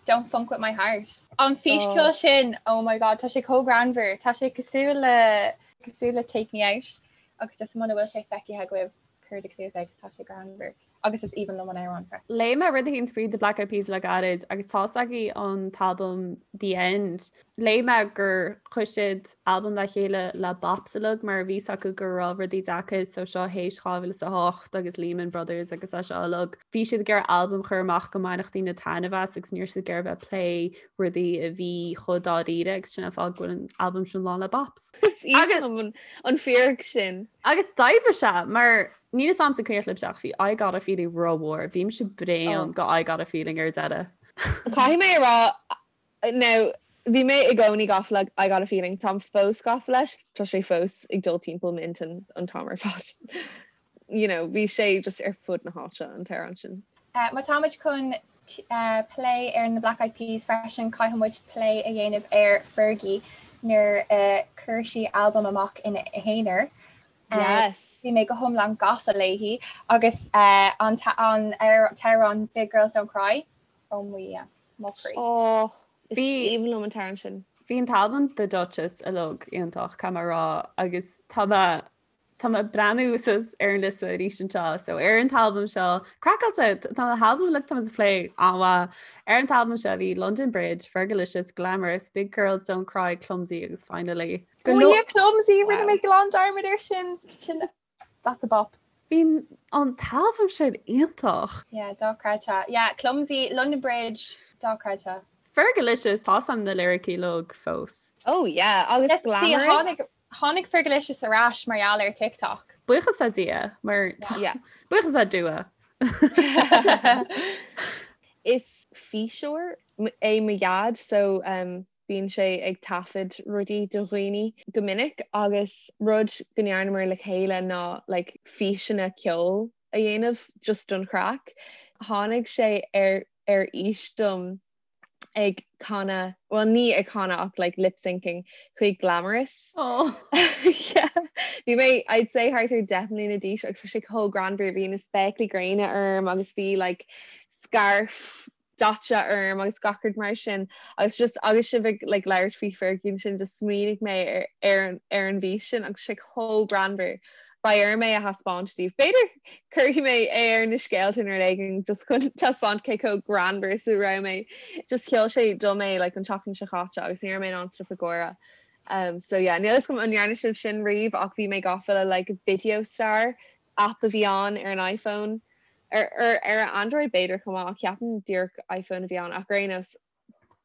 Don't Funk With My Heart? An físcheol sin, oh my god, tá sé chomh greannmhar, tá sé cosúil le, cosúil le Take Me Out agus just muna bhfuil sé feicthe agaibh cuir do chluas air 'cause tá sé greannmhar agus is aoibhinn liom an amhrán freisin. Léigh mé rud éicint faoi The Black Eyed Peas le gairid agus tá's agaibh an t-albam The End. Léigh mé gur chuir siad albam le chéile le bops uilig mar bhí 's acu go raibh rudaí deacair so seo théis 2008 agus Lehman Brothers agus é seo uilig. Bhí siad ag iarraidh albam a chur amach go mbainfeadh daoine taitneamh as agus ní raibh siad ag iarraidh bheith ag plé rudaí a bhí chomh dáiríre agus sin an fáth go bhfuil an albam sin lán le bops. Is aoibhinn liom an fíric sin. Agus d'oibrigh sé mar níl 'fhios a'msa an cuimhneach libhse ach bhí I Got a Feeling rómhór. Bhí mise bréan go I Got a Feeling ar deireadh. Caithfidh mé a rá Now, bhí mé i gcónaí gafa le I Got a Feeling, táim fós gafa leis, tá sé fós ag dul timpeall m'intinn an t-am ar fad. You know, bhí sé just ar fud na háite an t-amhrán sin. Má táimid chun plé ar na Black Eyed Peas freisin, caithfidh muid plé a dhéanamh ar Fergie nuair a chuir sí albam amach ina haonar. Yes. Bhí mé go hiomlán gafa léi agus an t-amhrán Big Girls Don't Cry, oh mo Dhia. Mo chroí. Ó, is aoibhinn liom an t-amhrán sin. Bhí an t-albam The Duchess uilig iontach, caithfidh mé a rá, agus tá mé tá mé ag breathnú suas ar an liosta arís anseo. So ar an t-albam seo, craiceáilte, tá na halbaim uilig tá muid ag plé an-mhaith. Ar an t-albam seo bhí London Bridge, Fergalicious, Glamorous, Big Girls Don't Cry, Clumsy agus Finally. Go leor Clumsy, rinne mé glan dearmad air sin. Sin That's a bop. Bhí an t-albam sin iontach. Yeah, dochreidte. Yeah, Clumsy, London Bridge, dochreidte. Fergalicious, tá 'fhios a'm na liricí uilig fós. Oh yeah, agus Glamorous. Tháinig Fergalicious ar ais mar gheall ar TikTok. Buíochas le Dia, mar Yeah. buíochas le Dua. Is físeoir é mo dhaid so um, Bíonn sé ag taifead rudaí do dhaoine go minic agus rud go ndearnamar le chéile ná like físeanna ceoil a dhéanamh just don chraic. Tháinig sé ar ar fhís dom ag canadh, bhuel ní ag canadh ach like lip syncing chuig Glamorous. Oh. Yeah. Bhí mé I'd say thart ar 10 mbliana d'aois agus bhí sé chomh greannmhar, bhí na spéaclaí gréine orm agus bhí like scarf daite orm agus gach rud mar sin agus just agus sibh ag like labhairt faoi Fergie ansin just smaoinigh mé ar ar an ar an bhfís sin agus sé chomh greannmhar. Beidh orm é a thaispeáint daoibh. B'fhéidir cuirfidh mé é ar na scéalta nó rud éigin just chun taispeáint cé chomh greannmhar is a raibh mé. Just sheol sé dom é like an tseachtain seo chaite agus ní raibh mé in ann stop ag gáire. Um, so yeah, níl 'fhios agam an ndearna sibh sin riamh ach bhí mé gafa le like Video Star app a bhí ann ar an iPhone, ar ar Android b'fhéidir chomh maith ach ceapaim díreach iPhone a bhí ann ach ar aon nós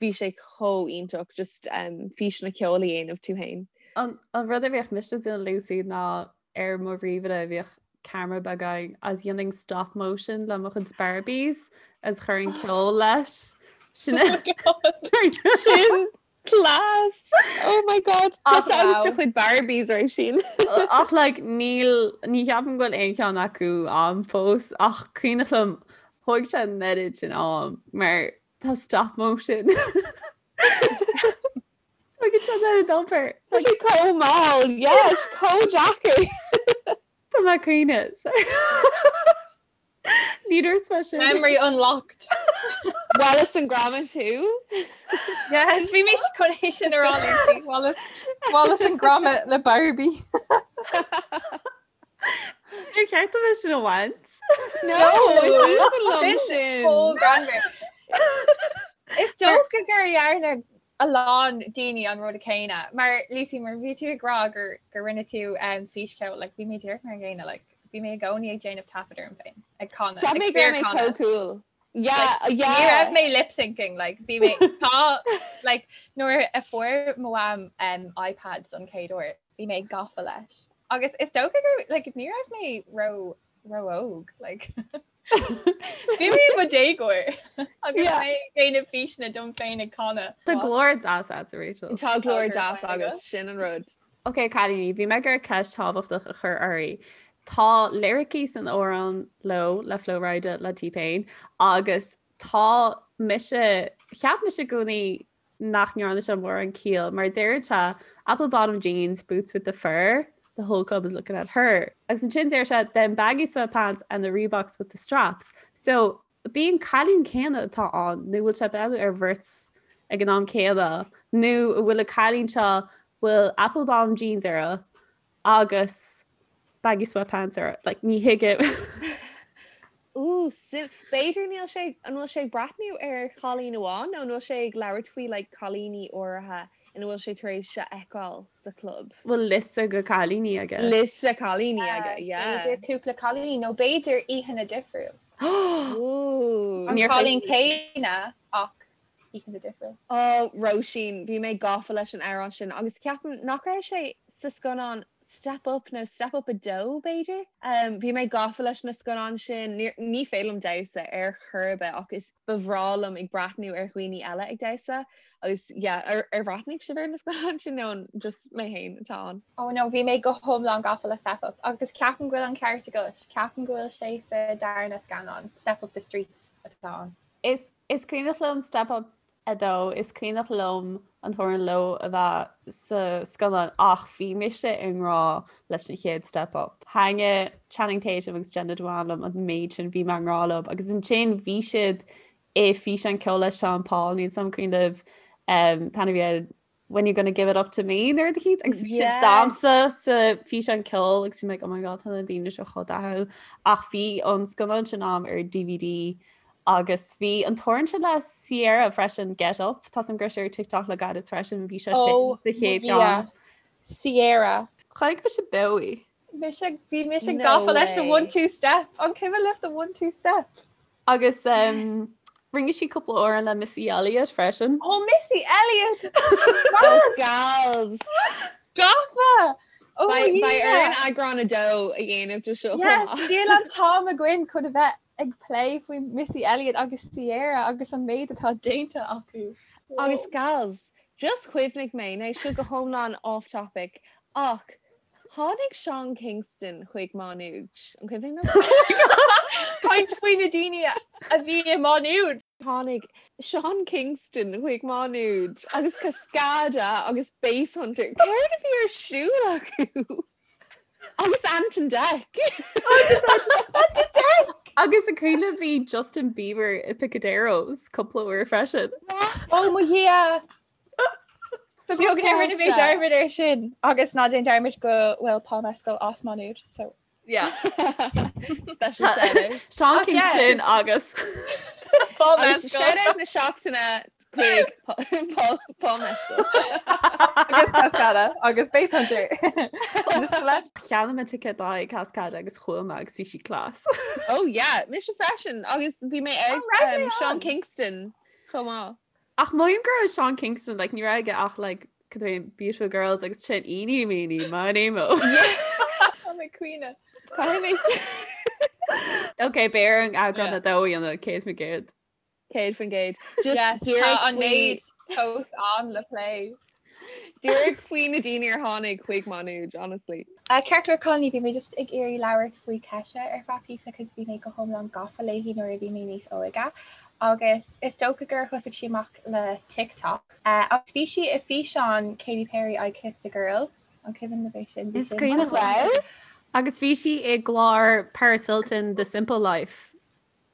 bhí sé chomh iontach just um, físeanna ceoil a dhéanamh tú féin. An, an rud a bhíodh mise ag déanamh Lucy ná ar mo ríomhaire bhíodh ceamara beag ann agus dhéanainn stop motion le mo chuid Barbies agus chuirfinn ceol leis. Sin Sin Class! Oh my god! Tusa agus do chuid Barbies Róisín. Ach like níl ní cheapaim go bhfuil aon cheann acu a'm fós ach cuimhneach liom thóg sé an oiread sin am mar tá stop motion. Tógann sé an oiread obair. Tá sé chomh mall, yes, chomh deacair. Tá mé ag caoineadh. Ní dúirt mé sin. Memory unlocked. Wallace and Gromit thú? Yes, bhí mé chun é sin a rá Lucy. Wallace, Wallace and Gromit le Barbie. Ar cheart dom é sin a bhaint? No, is aoibhinn liom sin. Chomh greannmhar. Is dócha gur dhearna a lán daoine an rud céanna. Mar Lucy, mar bhí tú ag rá gur gur rinne tú um, físcheol, like, bhí mé díreach mar an gcéanna, like, bhí mé i gcónaí ag déanamh taifead orm féin, ag canadh, Cheap ag mé go raibh mé fíorchanadh. chomh cool. Yeah, Ní yeah. raibh mé lip syncing, like, bhí mé tá like, nuair a fuair mo mham um, iPad don chéad uair, bhí mé gafa leis. Agus is dócha gur like, ní raibh mé ró ró-óg, like. Bhí mé i mo dhéagóir agus Yeah. mé ag déanamh físeanna dom féin ag canadh. Tá glór deas agat, Rachel. Tá glór Tá deas glór agat, sin an rud. Ok, cailíní, bhí mé ag iarraidh ceist thábhachtach a chur oraibh. Tá liricí san amhrán Low le Flo Rida le T-Pain agus tá mise, cheap mise i gcónaí nach ndearna sé mórán ciall mar deireann sé apple bottom jeans, boots with the fur, the whole club is looking at her. Agus ansin deir sé them baggy sweatpants and the Reeboks with the straps. So b'é an cailín céanna atá ann nó bhfuil sé ag breathnú ar bheirt ag an am céanna nó an bhfuil an cailín seo bhfuil apple bottom jeans uirthi agus baggy sweatpants uirthi like ní thuigim. Ooh, sim. B'fhéidir níl sé, an bhfuil sé ag breathnú ar chailín amháin nó an bhfuil sé ag labhairt faoi like cailíní áirithe ina bhfuil sé tar éis a fheiceáil sa chlub? Bhfuil liosta de cailíní aige? Liosta cailíní aige, yeah. B'fhéidir cúpla cailín nó b'fhéidir oícheanta difriúil. Ooh. An cailín céanna ach oícheanta difriúil. Oh, Róisín, bhí mé gafa leis an amhrán sin agus ceapaim nach raibh sé sa scannán Step Up nó Step Up 2 b'fhéidir? Bhí mé gafa leis na scannáin sin. Ní féidir liom damhsa ar chor ar bith ach is ba bhreá liom ag breathnú ar dhaoine eile ag damhsa agus yeah, ar ar bhreathnaigh sibh ar na scannáin sin nó an just mé féin atá ann? Oh no, bhí mé go hiomlán gafa le Step Up agus ceapaim go bhfuil an ceart agat, ceapaim go bhfuil sé sa darna scannán, Step Up the Streets atá ann. Is is cuimhneach liom Step Up 2, Is cuimhneach liom an t-amhrán Low a bheith sa scannán ach bhí mise i ngrá leis an chéad Step Up. Thaitnigh Channing Tatum agus Jenna Dewan liom an méid sin, bhí mé i ngrá leo agus ansin bhí siad i físeán ceoil le Sean Paul, níl 's a'm an cuimhin libh an t-ainm a bhí air When You Gonna Give It Up To Me nó rud eicínt agus bhí siad damhsa sa físeán ceoil agus bhí mé like oh my god tá na daoine seo chomh dathúil ach bhí an scannán sin a'm ar DVD agus bhí an t-amhrán sin le Ciara freisin Get Up tá 's a'm go raibh sé ar TikTok le gairid freisin bhí sé sin Oh sa chéad mo Dhia. cheann. Ciara. Chonaic mise beo í. Mise bhí mise No gafa leis an way. one two step. An cuimhin libh the one two step? Agus um, rinne sí cúpla amhrán le Missy Elliott freisin. Oh Missy Elliott! Oh gals! Gafa! Oh Beidh yeah. orainn eagrán 2 a dhéanamh de seo chomh Yes, maith. níl an t-am againn chun a bheith ag plé faoi Missy Elliott agus Ciara agus an méid atá déanta acu. Agus gals, just chuimhnigh mé, now seo go hiomlán off topic, ach Tháinig Sean Kingston chuig Má Nuad. An cuimhin libh? Caint faoi na daoine a bhí i Má Nuad. Tháinig Sean Kingston chuig Má Nuad agus Cascada agus Basshunter. Céard a bhí ar siúl acu? Agus Ant and Dec. Agus Ant and Dec! Agus an cuimhin libh bhí Justin Bieber i Picaderos cúpla uair freisin. Ó mo Dhia! Ba bheag nár rinne mé dearmad air sin agus ná déan dearmad go bhfuil Paul Mescal as Má Nuad so. Yeah. Special shout out. Sean Ach, yeah. Kingston agus Paul Agus Mescal. shout out na seachtaine chuig Paul Paul Mescal. Agus Cascada agus Basshunter. Cheannaigh mé ticéad le haghaidh Cascada agus chuaigh mé agus bhí sí class. Oh yeah, mise freisin agus bhí mé ag An raibh mé um, Sean ann? Kingston chomh maith. Ach mothaím go raibh Sean Kingston like ní raibh aige ach like cad é Beautiful Girls agus sin Eeny Meeny Miny Mo. Tá mé caoineadh. Caithfidh mé Ok, beidh orainn eagrán Yeah. a dó a dhéanamh 100%. 100%. Just Yes, tá díreach an faoi méid fós ann le plé. díreach faoi na daoine ar tháinig chuig Má Nuad, honestly. Ceart go leor cailíní, bhí mé just ag iarraidh labhairt faoi Kesha ar feadh píosa cos bhí mé go hiomlán gafa léi nuair a bhí mé níos óige agus is dócha gur thosaigh sí amach le TikTok. Agus bhí sí i físeán Katy Perry I Kissed a Girl, an cuimhin libh é sin? Bhí Is sin cuimhin liom. Agus bhí sí i gclár Paris Hilton The Simple Life.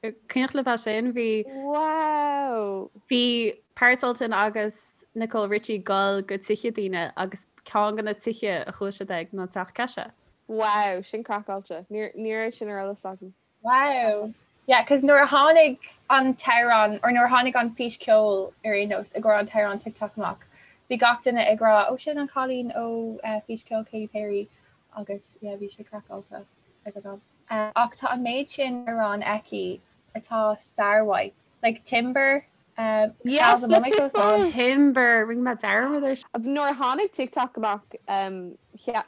Cuimhneach libh é sin? Bhí. Wow! Bhí Paris Hilton agus Nicole Richie ag dul go tithe daoine agus ceann de na tithe a chuaigh siad ag ná teach Kesha. Wow, sin craiceáilte. Ní raibh sin ar eolas agam. Wow. Yeah, cos nuair a tháinig an t-amhrán, or nuair a tháinig an fís ceoil ar aon nós i gcomhair an t-amhrán TikTok amach, bhí gach duine ag rá, oh sin an cailín ó fís ceoil Katy Perry agus yeah bhí sé craiceáilte ag an am. Ach tá an méid sin amhrán aici atá sármhaith. Like Timber, um, Yes, le Pitbull. Timber, rinne mé dearmad air. Nuair a tháinig TikTok amach, um,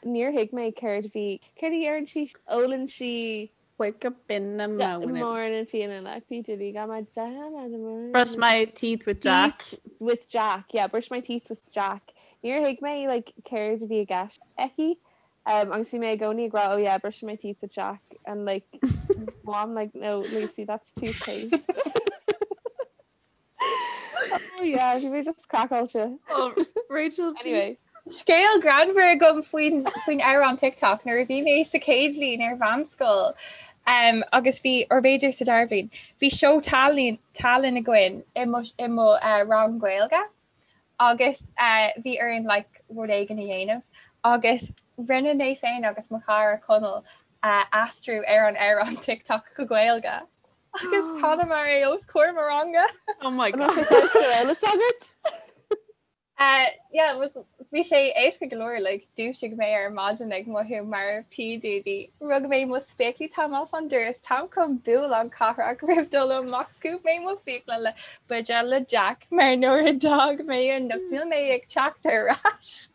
níor thuig mé céard a bhí, céard a deireann sí, ólann sí Wake up in the morning. Morning feeling like P Diddy got my down Brush my teeth with Jack. Teeth with Jack, yeah, brush my teeth with Jack. Níor thuig mé like céard a bhí i gceist aici. Um, agus bhí mé i gcónaí ag rá, oh yeah, brushing my teeth with Jack and like mom like no Lucy that's toothpaste. Oh yeah, bhí mé just craiceáilte. Oh, Rachel, Anyway. Scéal greannmhar agam faoin faoin amhrán TikTok nuair a bhí mé sa chéad bhliain ar mheánscoil um, agus bhí or b'fhéidir sa dara bhliain, bhí seó tallann tallann againn i mo i mo uh, rang Gaeilge agus uh, bhí orainn like, rud éigin a dhéanamh agus rinne mé féin agus mo chara Conall uh, aistriú ar an amhrán TikTok go Gaeilge. Agus chanamar é os comhair mo ranga. Oh my An raibh god. sé fós ar eolas agat? Uh, yeah, was, bhí sé éasca go leor, like, dúisigh mé ar maidin ag mothú mar P Diddy. Rug mé mo spéaclaí táim as an doras, táim chun bualadh cathrach roimh dul amach scuab mé mo fiacla le buidéal le Jack mar nuair a d'fhág mé anocht níl mé ag teacht ar ais.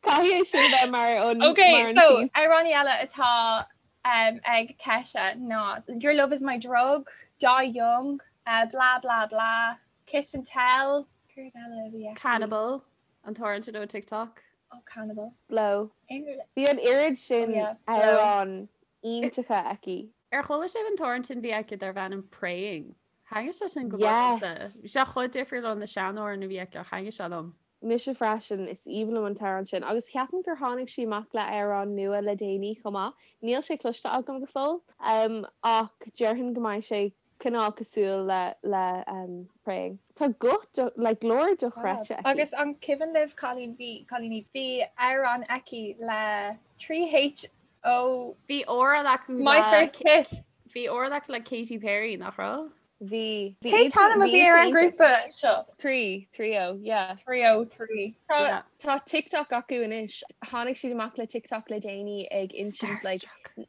Caithfidh é sin a bheith mar an Okay, mar an so tease. amhráin eile atá um, ag Kesha ná Your Love Is My Drug, Die Young, uh, Blah Blah Blah, Kiss and Tell, céard eile a bhí aici? Cannibal, an t-amhrán sin ó TikTok. Oh, Cannibal. Blow. Aon rud- Bhí an oiread Oh sin yeah, Blow. amhrán iontacha aici. Ar chuala sibh an t-amhrán sin a bhí aici darb ainm Praying? Thaitnigh sé sin go mór Yes. liomsa. Bhí sé chomh difriúil ó na seanamhráin a bhí aici ach thaitnigh sé liom. Mise freisin, is aoibhinn liom an t-amhrán sin. Agus ceapaim gur tháinig sí amach le amhrán nua le déanaí chomh maith. Níl sé cloiste agam go fóill, ach déarfainn go mbeidh sé cineál cosúil le le Praying. Tá guth like glór dochreidte aici. Agus an cuimhin libh cailín bhí cailíní bhí amhrán aici le 3HO. Bhí amhrán acu My First Kiss. Bhí amhrán acu le Katy Perry, nach raibh? Bhí. Bhí Cén t-ainm a bhí ar an ngrúpa seo? 3, 3O, yeah. 3O, 3. Tá tá TikTok acu anois. Tháinig siad amach le TikTok le déanaí ag insint like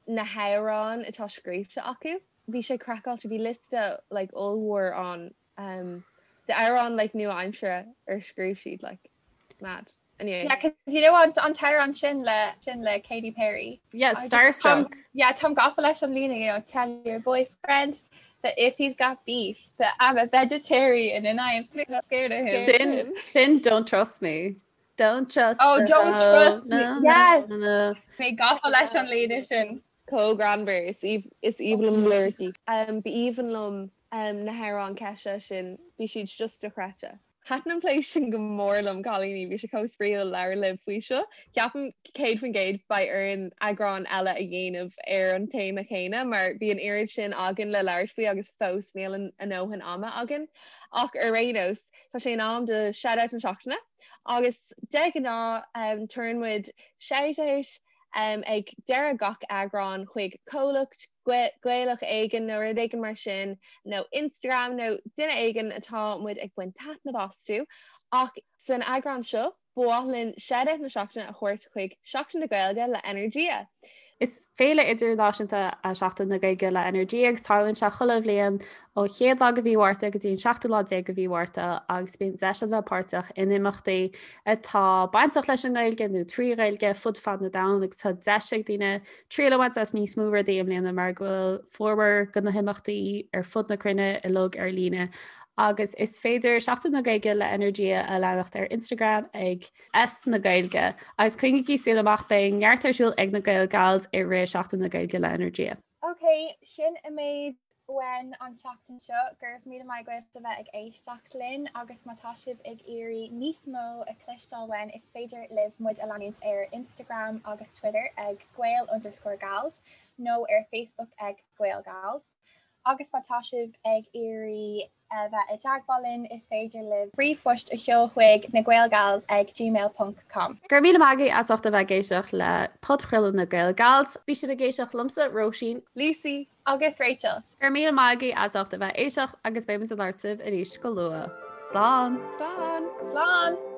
na hamhráin atá scríofa acu. Bhí sé craiceáilte, bhí liosta like ollmhór ann um, d'amhráin like nua-aimsire ar scríobh siad like mad. Anyway. Yeah, cause you know an an t-amhrán sin le sin le Katy Perry. Yeah, Starstruck. Yeah, táim gafa leis an líne, you know, tell your boyfriend that if he's got beef that I'm a vegetarian and I am scared of him. Sin, sin don't trust me. Don't trust Oh, don't trust me. No, Yes. no, no. Mé gafa leis an líne sin. Chomh greannmhar, is aoibhinn liom liricí. B'aoibhinn liom na hamhráin Kesha sin, bhí siad just dochreidte. Thaitin an plé sin go mór liom, cailíní, bhí sé chomh spraíúil labhairt libh faoi seo. Ceapaim 100% beidh orainn eagrán eile a dhéanamh ar an téama chéanna mar bhí an oiread sin againn le labhairt faoi agus fós níl a ndóthain ama againn. Ach ar aon nós, tá sé in am do Shout-Out na Seachtaine agus de ghnáth tugann muid shout-out ag deireadh gach eagrán chuig comhlacht Gaelach éigin nó rud éigin mar sin, nó Instagram nó duine éigin atá muid ag baint taitneamh astu. Ach san eagrán seo, ba mhaith linn Shout-Out na Seachtaine a thabhairt chuig Seachtain na Gaeilge le Energia. Is féile idirnáisiúnta é Seachtain na Gaeilge le Energia agus tarlaíonn sé chuile bhliain ó chéad lá de mhí Mhárta go dtí an seachtú lá déag de mhí Mhárta agus bíonn deis a bheith páirteach in imeachtaí atá bainteach leis an nGaeilge nó trí Ghaeilge fud fad na domhan agus tá deis ag daoine triail a bhaint as níos mó rudaí i mbliana mar go bhfuil formhór de na himeachtaí ar fud na cruinne uilig ar líne agus is féidir Seachtain na Gaeilge le Energia a leanacht ar Instagram ag S na Gaeilge agus coinnígí súil amach beidh neart ar siúl ag na Gael Gals i rith Seachtain na Gaeilge le Energia. Ok, sin an méid uainn an tseachtain seo. Go raibh míle maith agaibh a bheith ag éisteacht linn agus má tá sibh ag iarraidh níos mó a chloisteáil uainn is féidir libh muid a leanúint ar Instagram agus Twitter ag Gael underscore Gals nó ar Facebook ag Gael Gals. Agus má tá sibh ag iarraidh. bheith i dteagmháil linn, is féidir libh ríomhphost a sheoladh chuig nagaelgals ag gmail ponc com. Go raibh míle maith agaibh as ucht a bheith ag éisteacht le podchraoladh na Gael Gals. Bhí sibh ag éisteacht liomsa, Róisín. Lucy. Agus Rachel. Go raibh míle maith agaibh as ucht a bheith ag éisteacht agus beidh muid ag labhairt libh arís go luath. Slán! Slán! Slán!